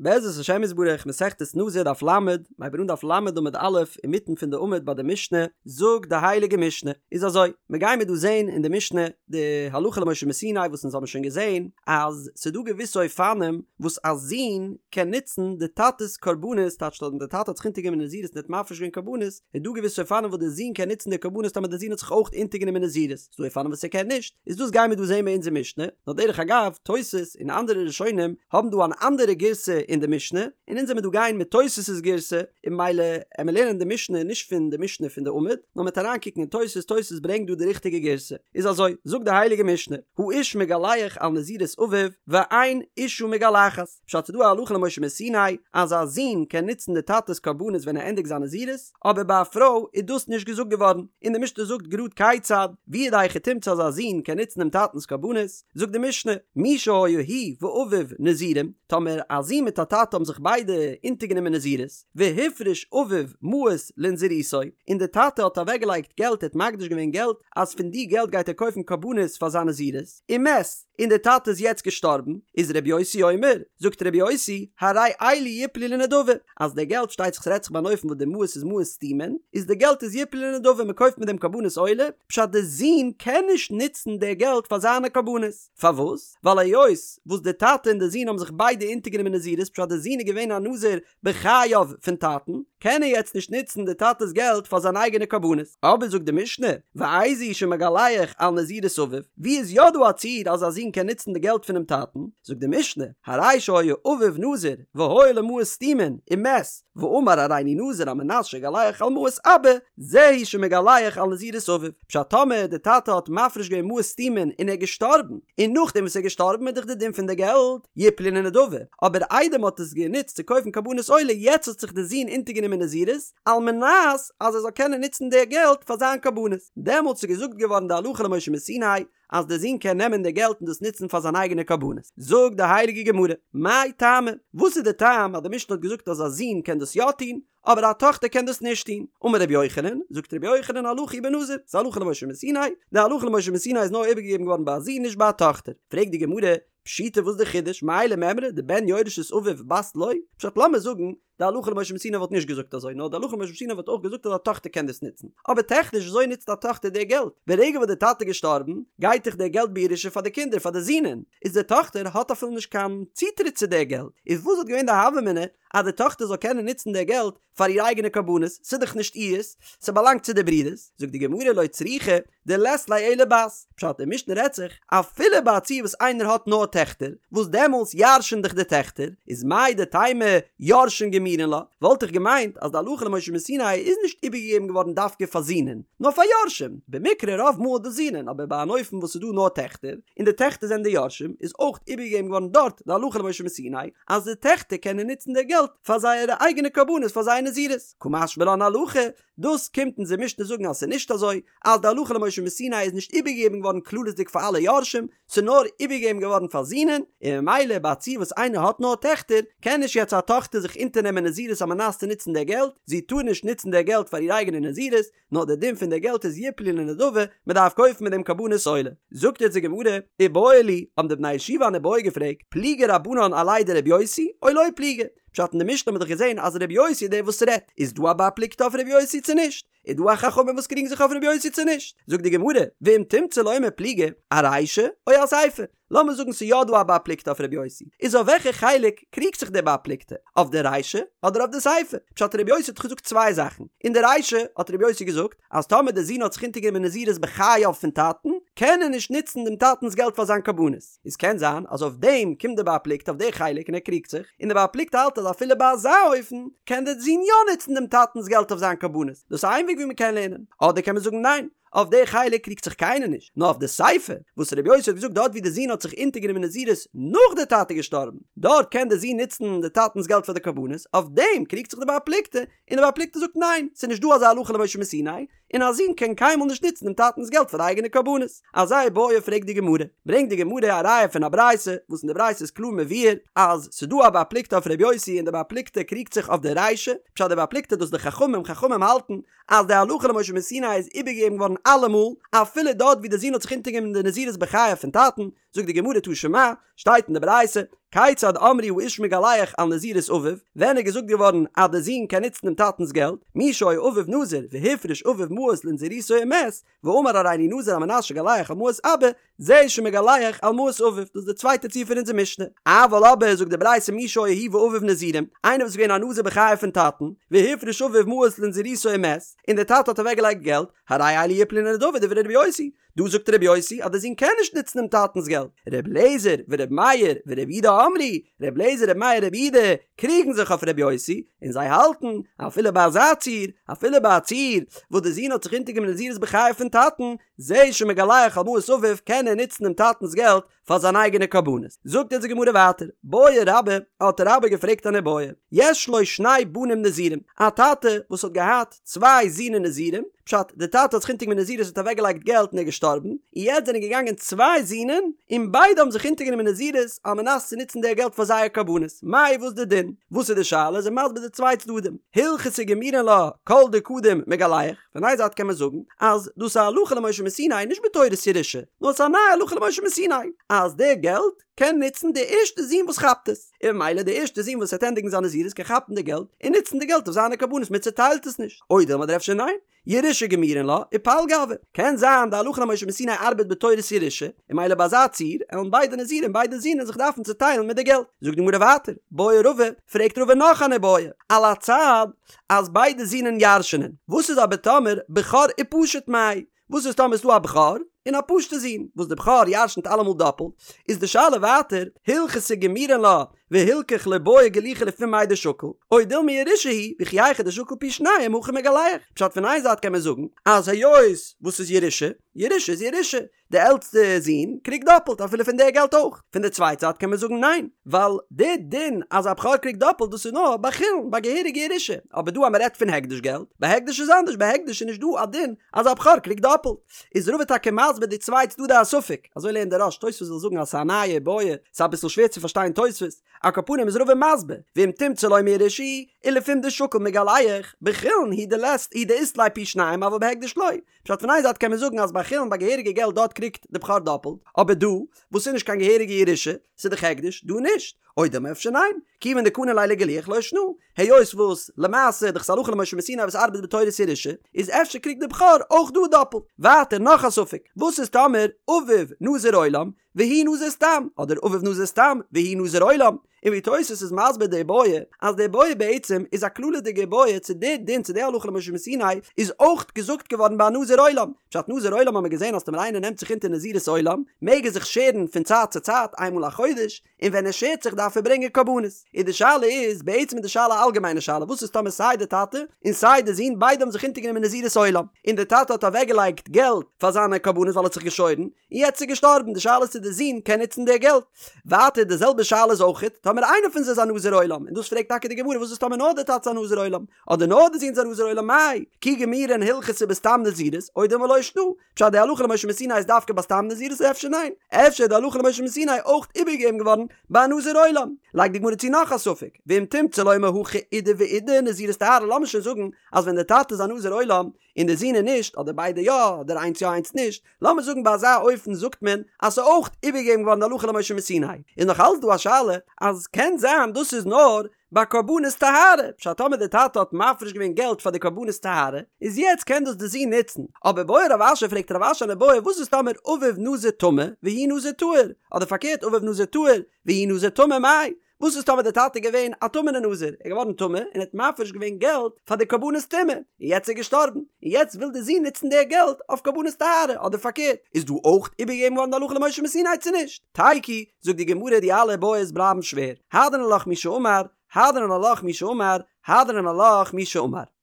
בעזרת השם יתברך, מסכת נזיר דף ל', מ'הייבט אן דף ל' עמוד א', אינמיטן פון די עמוד ביי די משנה, זאגט די הייליגע משנה, איז אזוי, מ'גיימיר דא זען אין די משנה די הלכה למשה מסיני וואס אונז האבן שוין געזען אז ס'דא געוויסע אופנים וואס א זון קען נוצן די טאטע'ס קרבנות, טייטש אז די טאטע האט זיך אונטערגענומען נזירות און האט מפריש געווען קרבנות, איז דא געוויסע אופנים וואס די זון קען נוצן די קרבנות טאמער די זון האט זיך אויך אונטערגענומען נזירות. ס'דא אופנים וואס ער קען נישט, איז דאס גיימיר דא זעהן ביי אונזער משנה, נאר דרך אגב, תוס' און אנדערע ראשונים האבן דא אן אנדערע גירסא אין די משנה, און אונז עמיר דא גיין מיט תוס' גירסא, און ממילא עמיר לערנען די משנה נישט פון די משנה פון די עמוד, נאר מ'עט אריינקוקן אין תוס', תוס' ברענגט דא די ריכטיגע גירסא, איז אזוי, זאגט די הייליגע משנה, האיש מגלח על נזירות אביו, ואין אשה מגלחת, פשט ס'דא א הלכה למשה מסיני אז א זון קען נוצן די טאטע'ס קרבנות ווען ער ענדיגט זיין נזירות, אבער ביי א פרוי איז דאס נישט געזאגט געווארן, און די משנה זאגט גראד כיצד, ווי איז די היכי תמצא אז א זון קען נוצן דעם טאטנ'ס קרבנות, זאגט די משנה, מי שהיה הוא ואביו נזירים, טאמער א זון מיט א טאטע האבן זיך ביידע אונטערגענומען נזירות, והפריש אביו מעות לנזירותו, און די טאטע האט אוועקגעלייגט געלט ער האט מקדיש געווען געלט אז פון די געלט גייט ער קויפן קרבנות פאר זיין נזירות, ומת, און דער טאטע איז יעצט געשטארבן, איז רבי יוסי אומר, זאגט רבי יוסי, הרי אלו יפלו לנדבה, אז די געלט שטייט זיך ס'רעדט זיך ביי אן אופן וואס די מעות איז מעות סתומין, איז די געלט איז יפלו לנדבה מען קויפט מיט דעם קרבנות עולה, פשט די זון קען נישט נוצן די געלט פאר זיינע קרבנות, פארוואס? ווייל היות וואס די טאטע און די זון האבן זיך ביידע אונטערגענומען נזירות פשט די זון איז געווען א נזיר בחייו פון טאטן, קען ער יעצט נישט נוצן די טאטע'ס געלט פאר זיין אייגענע קרבנות. אבער זאגט די משנה, ואיזהו שמגלח על נזירות אביו, ווי איז יא דא א ציור אז א זון קען נוצן די געלט פונעם טאטן? זאגט די משנה, הרי שהיה אביו נזיר והיו לו מעות סתומין, ומת, ואמר הריני נזיר על מנת שאגלח על מעות אבא, זהו שמגלח על נזירות אביו. פשט טאמער די טאטע האט מפריש געווען מעות סתומין און ער איז געשטארבן, און נאכדעם וואס ער איז געשטארבן איז דאך די דין פון די געלט יפלו לנדבה, אבער איידער מען האט עס גענוצט צו קויפן קרבנות עולה יעצט האט זיך די זון אונטערגענומען נזירות על מנת אז ער זאל קענען נוצן די געלט פאר זיין קרבנות, דעמאלטס איז געזאגט געווארן די הלכה למשה מסיני אז די זון קען נעמען די געלט און דאס נוצן פאר זיין אייגענע קרבנות. זאגט די הייליגע גמרא, מאי טעמא, וואס איז די טעם אז די משנה האט געזאגט אז א זון קען דאס יא טון, אבער א טאכטער קען דאס נישט טון. אמר רבי יוחנן, זאגט רבי יוחנן הלכה היא בנזיר, ס'איז הלכה למשה מסיני, די הלכה למשה מסיני איז נאר איבערגעגעבן געווארן ביי א זון נישט ביי א טאכטער. פרעגט די גמרא, פשיטא וואס די חידוש, מאי למימרא דבן יורש את אביו בת לא? פשט לאמיר זאגן, די הלכה למשה מסיני וואלט נישט געזאגט אזוי, נאר די הלכה למשה מסיני וואלט אויך געזאגט אז א טאכטער קען דאס נוצן. אבער טעכניש וויאזוי נוצט א טאכטער די געלט? ברגע וואס די טאטע איז געשטארבן, גייט דאך די געלט בירושה פאר די קינדער, פאר די זינען, איז די טאכטער האט אפילו נישט קיין צוטריט צו די געלט, איז וואס וואלט געווען די הוה אמינא אז די טאכטער זאל קענען נוצן די געלט פאר איר אייגענע קרבנות, ס'איז דאך נישט אירס, ס'באלאנגט צו די ברודערס, זאגט די גמרא לא צריכא דלית ליה אלא בת, פשט די משנה רעדט זיך אפילו ביי א ציור וואס איינער האט נאר טעכטער, וואס דעמאלס ירש'ן דאך די טעכטער, איז מהו דתימא יורשין גמירין לה, וואלט איך געמיינט אז די הלכה למשה מסיני איז נישט איבערגעגעבן געווארן דווקא פאר זינען, נאר פאר יורשים, במקרה רוב מאל די זינען, אבער ביי אן אופן וואס ס'איז דא נאר טעכטער, און די טעכטער זענען די יורשים, איז אויך איבערגעגעבן געווארן דארט די הלכה למשה מסיני, אז די טעכטער קענען נוצן די געלט פאר זייערע אייגענע קרבנות פאר זייער נזירות, קא משמע לן הלכה, דאס קומט אונזער משנה זאגן אז ס'איז נישט אזוי, אז די הלכה למשה מסיני איז נישט איבערגעגעבן געווארן כללית'דיג פאר אלע יורשים, ס'איז נאר איבערגעגעבן געווארן פאר זינען, און ממילא ביי א ציור וואס איינער האט נאר טעכטער, קען נישט יעצט א טאכטער זיך אונטערנעמען נזירות על מנת צו נוצן די געלט, זי טאר נישט נוצן די געלט פאר איר אייגענע נזירות, נאר דער דין פון די געלט איז יפלו לנדבה, מען דארף קויפן מיט דעם קרבנות עולה. זאגט יעצט די גמרא, איבעיא להו, האבן די בני ישיבה אן איבעיא געפרעגט, פליגי רבנן עליה דרבי יוסי, או לא פליגי? פשט אין די משנה האט מען דאך געזען אז רבי יוסי איז דער וואס רעדט, איז דא א בר פלוגתא אויף רבי יוסי צו נישט? איז דא א חכמים וואס קריגן זיך אויף רבי יוסי צו נישט? זאגט די גמרא, ואם תמצא לומר פליגי, ארישא או אסיפא? לאמיר זאגן ס'איז יא דא א בר פלוגתא אויף רבי יוסי, איז אויף וועלכע חלק קריגט זיך דער בר פלוגתא? אויף די רישא אדער אויף די סיפא? פשט רבי יוסי האט דאך געזאגט צוויי זאכן, אין די רישא האט רבי יוסי געזאגט אז טאמער די זון האט זיך אונטערגענומען נזירות בחייו פון טאטן, קען ער נישט נוצן דעם טאטנ'ס געלט פאר זיין קרבנות, איז קען זיין אז אויף דעם קומט דער בר פלוגתא אויף די חלק און ער קריגט זיך, און דער בר פלוגתא האלט אז אפילו ביי אזא אופן קען דער זון יא נוצן דעם טאטנ'ס געלט אויף זיין קרבנות, דאס איז איין וועג ווי מ'קען לערנען, אדער קען מען זאגן ניין, אויף די חלק קריגט זיך קיינער נישט, נאר אויף די סיפא, וואס רבי יוסי האט געזאגט דארט ווי די זון האט זיך אונטערגענומען נזירות נאך די טאטע געשטארבן, דארט קען די זון נוצן די טאטנ'ס געלט פאר די קרבנות, אויף דעם קריגט זיך די בר פלוגתא, און די בר פלוגתא זאגט ניין, ס'איז נישט דא אזא הלכה למשה מסיני, און א זון קען קיינמאל נישט נוצן דעם טאטנ'ס געלט פאר די אייגענע קרבנות. אזא איבעיא פרעגט די גמרא, ברענגט די גמרא א ראיה פון א ברייתא, וואס אין די ברייתא איז קלאר מבואר אז ס'איז דא א בר פלוגתא אויף רבי יוסי און די בר פלוגתא קריגט זיך אויף די רישא, פשט די בר פלוגתא דאס די חכמים, חכמים האלטן אז די הלכה למשה מסיני איז איבערגעגעבן געווארן אלעמאל, אפילו דארט ווי די זון האט זיך אונטערגענומען די נזירות בחייו פון טאטן. זאגט די גמרא תא שמע, שטייט אין די ברייתא, כיצד אמרו האיש מגלח על נזירות אביו, ווען איז געזאגט געווארן אז די זון קען נוצן דעם טאטנ'ס געלט, מי שהיה אביו נזיר והפריש אביו מעות לנזירותו ומת, ואמר הריני נזיר על מנת שאגלח על מעות אבא, זה שמגלח על מעות אביו, דאס איז די צווייטע ציור פון אונזער משנה. אבל אבער זאגט די ברייתא מי שהיה הוא ואביו נזירים, איינער וואס איז געווען א נזיר בחייו פון טאטן, והפריש אביו מעות לנזירותו ומת, און דער טאטע האט אוועקגעלייגט געלט, הרי אלו יפלו לנדבה דברי רבי יוסי, דא זאגט רבי יוסי אז דער זון קען נישט נוצן דעם טאטנ'ס געלט. רבי אליעזר ורבי מאיר ורבי יהודה אמרו, רבי אליעזר רבי מאיר רבי יהודה קריגן זיך אויף רבי יוסי, און זיי האלטן, אפילו ביי אזא ציור, אפילו ביי א ציור וואס דער זון האט זיך אונטערגענומען נזירות בחייו פון טאטן, זה שמגלח על מעות אביו קען ער נוצן דעם טאטנ'ס געלט פאר זיין אייגענע קרבנות. זאגט אונז די גמרא ווייטער, בעי רבה, האט רבה געפרעגט אן איבעיא, יש לו שני בנים נזירים, א טאטע וואס האט געהאט צוויי זינען נזירים, פשט, די טאטע האט זיך אונטערגענומען נזירות האט אוועקגעלייגט געלט און ער איז געשטארבן, און יעצט זענען געגאנגען צוויי זינען און ביידע האבן זיך אונטערגענומען נזירות על מנת צו נוצן די געלט פאר זייער קרבנות, מאי וואס די דין? וואס איז די שאלה? איז ער מסביר די צוויי צדדים, הלכתא גמירין לה כל דקדים מגלח, פון איין זייט קען מען זאגן אז דאס איז א הלכה למשה מסיני נישט בתורת ירושה, נאר עס איז א נייע הלכה למשה מסיני אז די געלט קען נוצן די ערשטע זון וואס כאפט עס, און ממילא די ערשטע זון וואס וועט ענדיגן זיין נזירות קען כאפן די געלט און נוצן די געלט אויף זיינע קרבנות מען צוטיילט עס נישט, או דילמא אדער אפשר ניין, ירושה גמירין לה ופלגא הוי, קען זיין די הלכה למשה מסיני ארבעט בתורת ירושה, און ממילא ביי אזא ציור עלן ביידע נזירים ביידע זינען זיך דארפן צוטיילן מיט די געלט. זאגט די גמרא ווייטער, בעי רבא, פרעגט רבא נאך אן איבעיא, על הצד אז ביידע זינען ירש'נען, וואס איז אבער טאמער בכור ופשוט מאי? וואס איז טאמער איז דא א בכור און א פשוטע זון, וואס די בכור ירש'נט אלעמאל דאפלט, איז די שאלה ווייטער, הלכתא גמירין לה והלכך לא בעי גלוחי לפום מאי דשקיל, או דילמא ירושה היא, וכי היכי דשקיל פי שניים הכי מגלח. פשט פון איין זייט קען מען זאגן אז היות וואס איז ירושה, ירושה איז ירושה, די עלטסטע זון קריגט דאפלט אפילו פון די געלט אויך, פון די צווייטע זייט קען מען זאגן ניין, ווייל די דין אז א בכור קריגט דאפלט דאס איז נאר ביי חולין ביי געהעריגע ירושה, אבער דא אז מען רעדט פון הקדש געלט, ביי הקדש איז אנדערש ביי הקדש איז נישט דא א דין אז א בכור קריגט דאפלט, איז רבא טאקע מסביר די צוויי צדדי הספק, אזוי לערנט דער רא"ש, תוספות וויל זאגן אז ס'איז א נייע איבעיא, ס'איז אביסל שווער צו פארשטיין תוספות, על כל פנים איז רבא מסביר, ואם תמצא לומר ירושה היא, ולפום דשקיל מגלח, בחולין הוא דלית הוא דאית ליה פי שניים אבל בהקדש לא, פשט פון איין זייט קען מען זאגן אז ביי חולין ביי געהעריגע געלט דארט קריגט די בכור דאפלט, אבער דא וואס איז נישט קיין געהעריגע ירושה, ס'איז דאך הקדש, דא נישט, או דילמא אפשר ניין, כיוון דקני ליה לגילוח לא שנא, היות וואס למעשה דאך ס'איז הלכה למשה מסיני וואס ארבעט בתורת ירושה, איז אפשר קריגט די בכור אויך דא דאפלט. ווייטער נאך א ספק, וואס איז טאמער אביו נזיר עולם והוא נזיר סתם, אדער אביו נזיר סתם והוא נזיר עולם, און ווי תוס' איז מסביר די איבעיא, אז די איבעיא בעצם איז א כללית'דיגע איבעיא צו די דין צו די הלכה למשה מסיני איז אויך געזאגט געווארן ביי א נזיר עולם, פשט נזיר עולם האט מען געזען אז טאמער איינער נעמט זיך אונטער נזירות עולם מעג ער זיך שערן פון צייט צו צייט איינמאל א חודש, און ווען ער שערט זיך דארף ער ברענגען קרבנות. און די שאלה איז, בעצם איז די שאלה א אלגעמיינע שאלה, וואס איז טאמער סיי די טאטע און סיי די זון ביידע האבן זיך אונטערגענומען נזירות עולם, און די טאטע האט אוועקגעלייגט געלט פאר זיינע קרבנות ווייל ער האט זיך געשוירן, און יעצט איז געשטארבן, די שאלה איז צו די זון קען נוצן די געלט. ווייטער די זעלבע שאלה איז אויכעט טאמער איינער פון זיי איז א נזיר עולם, און דאס פרעגט טאקע די גמרא וואס איז טאמער נאר די טאטע איז א נזיר עולם, אדער נאר די זון איז א נזיר עולם מאי כי גמירין הלכתא בסתם נזירות או דילמא לא שנא, פשט די הלכה למשה מסיני איז דווקא ביי סתם נזירות אפשר ניין? אפשר איז די הלכה למשה מסיני אויך איבערגעגעבן געווארן ביי א נזיר עולם? לייגט די גמרא צו נאך א ספק, ואם תמצא לומר הכא אידי ואידי נזירות טהרה לאמיר שוין זאגן אז ווען די טאטע איז א נזיר עולם און די זון איז נישט אדער ביידע יא אדער איינס יא איינס נישט, לאמיר זאגן ביי אזא אופן זאגט מען אז ס'איז אויך איבערגעגעבן געווארן די הלכה למשה מסיני, איז נאך אלץ דא א שאלה אז קען זיין דאס איז נאר ביי קרבנות טהרה, פשט טאמער די טאטע האט מפריש געווען געלט פאר די קרבנות טהרה, איז יעצט קען דאס די זון נוצן, אבער בעי רב אשי פרעגט רב אשי אן איבעיא וואס איז טאמער אביו נזיר טמא והוא נזיר טהור, אדער פארקערט אביו נזיר טהור והוא נזיר טמא מאי, וואס איז טאמער די טאטע איז געווען א טמא'נע נזיר, ער איז געווארן טמא און האט מפריש געווען געלט פאר די קרבנות טומאה, און יעצט איז ער געשטארבן, און יעצט וויל די זון נוצן די געלט אויף קרבנות טהרה, אדער פארקערט, איז דא אויך איבערגעגעבן געווארן די הלכה למשה מסיני צו נישט? תיקו, זאגט די גמרא די אלע איבעיות בלייבן שווער, הדרן עלך מי שאמר, הדרן עלך מי שאמר, הדרן עלך מי שאמר.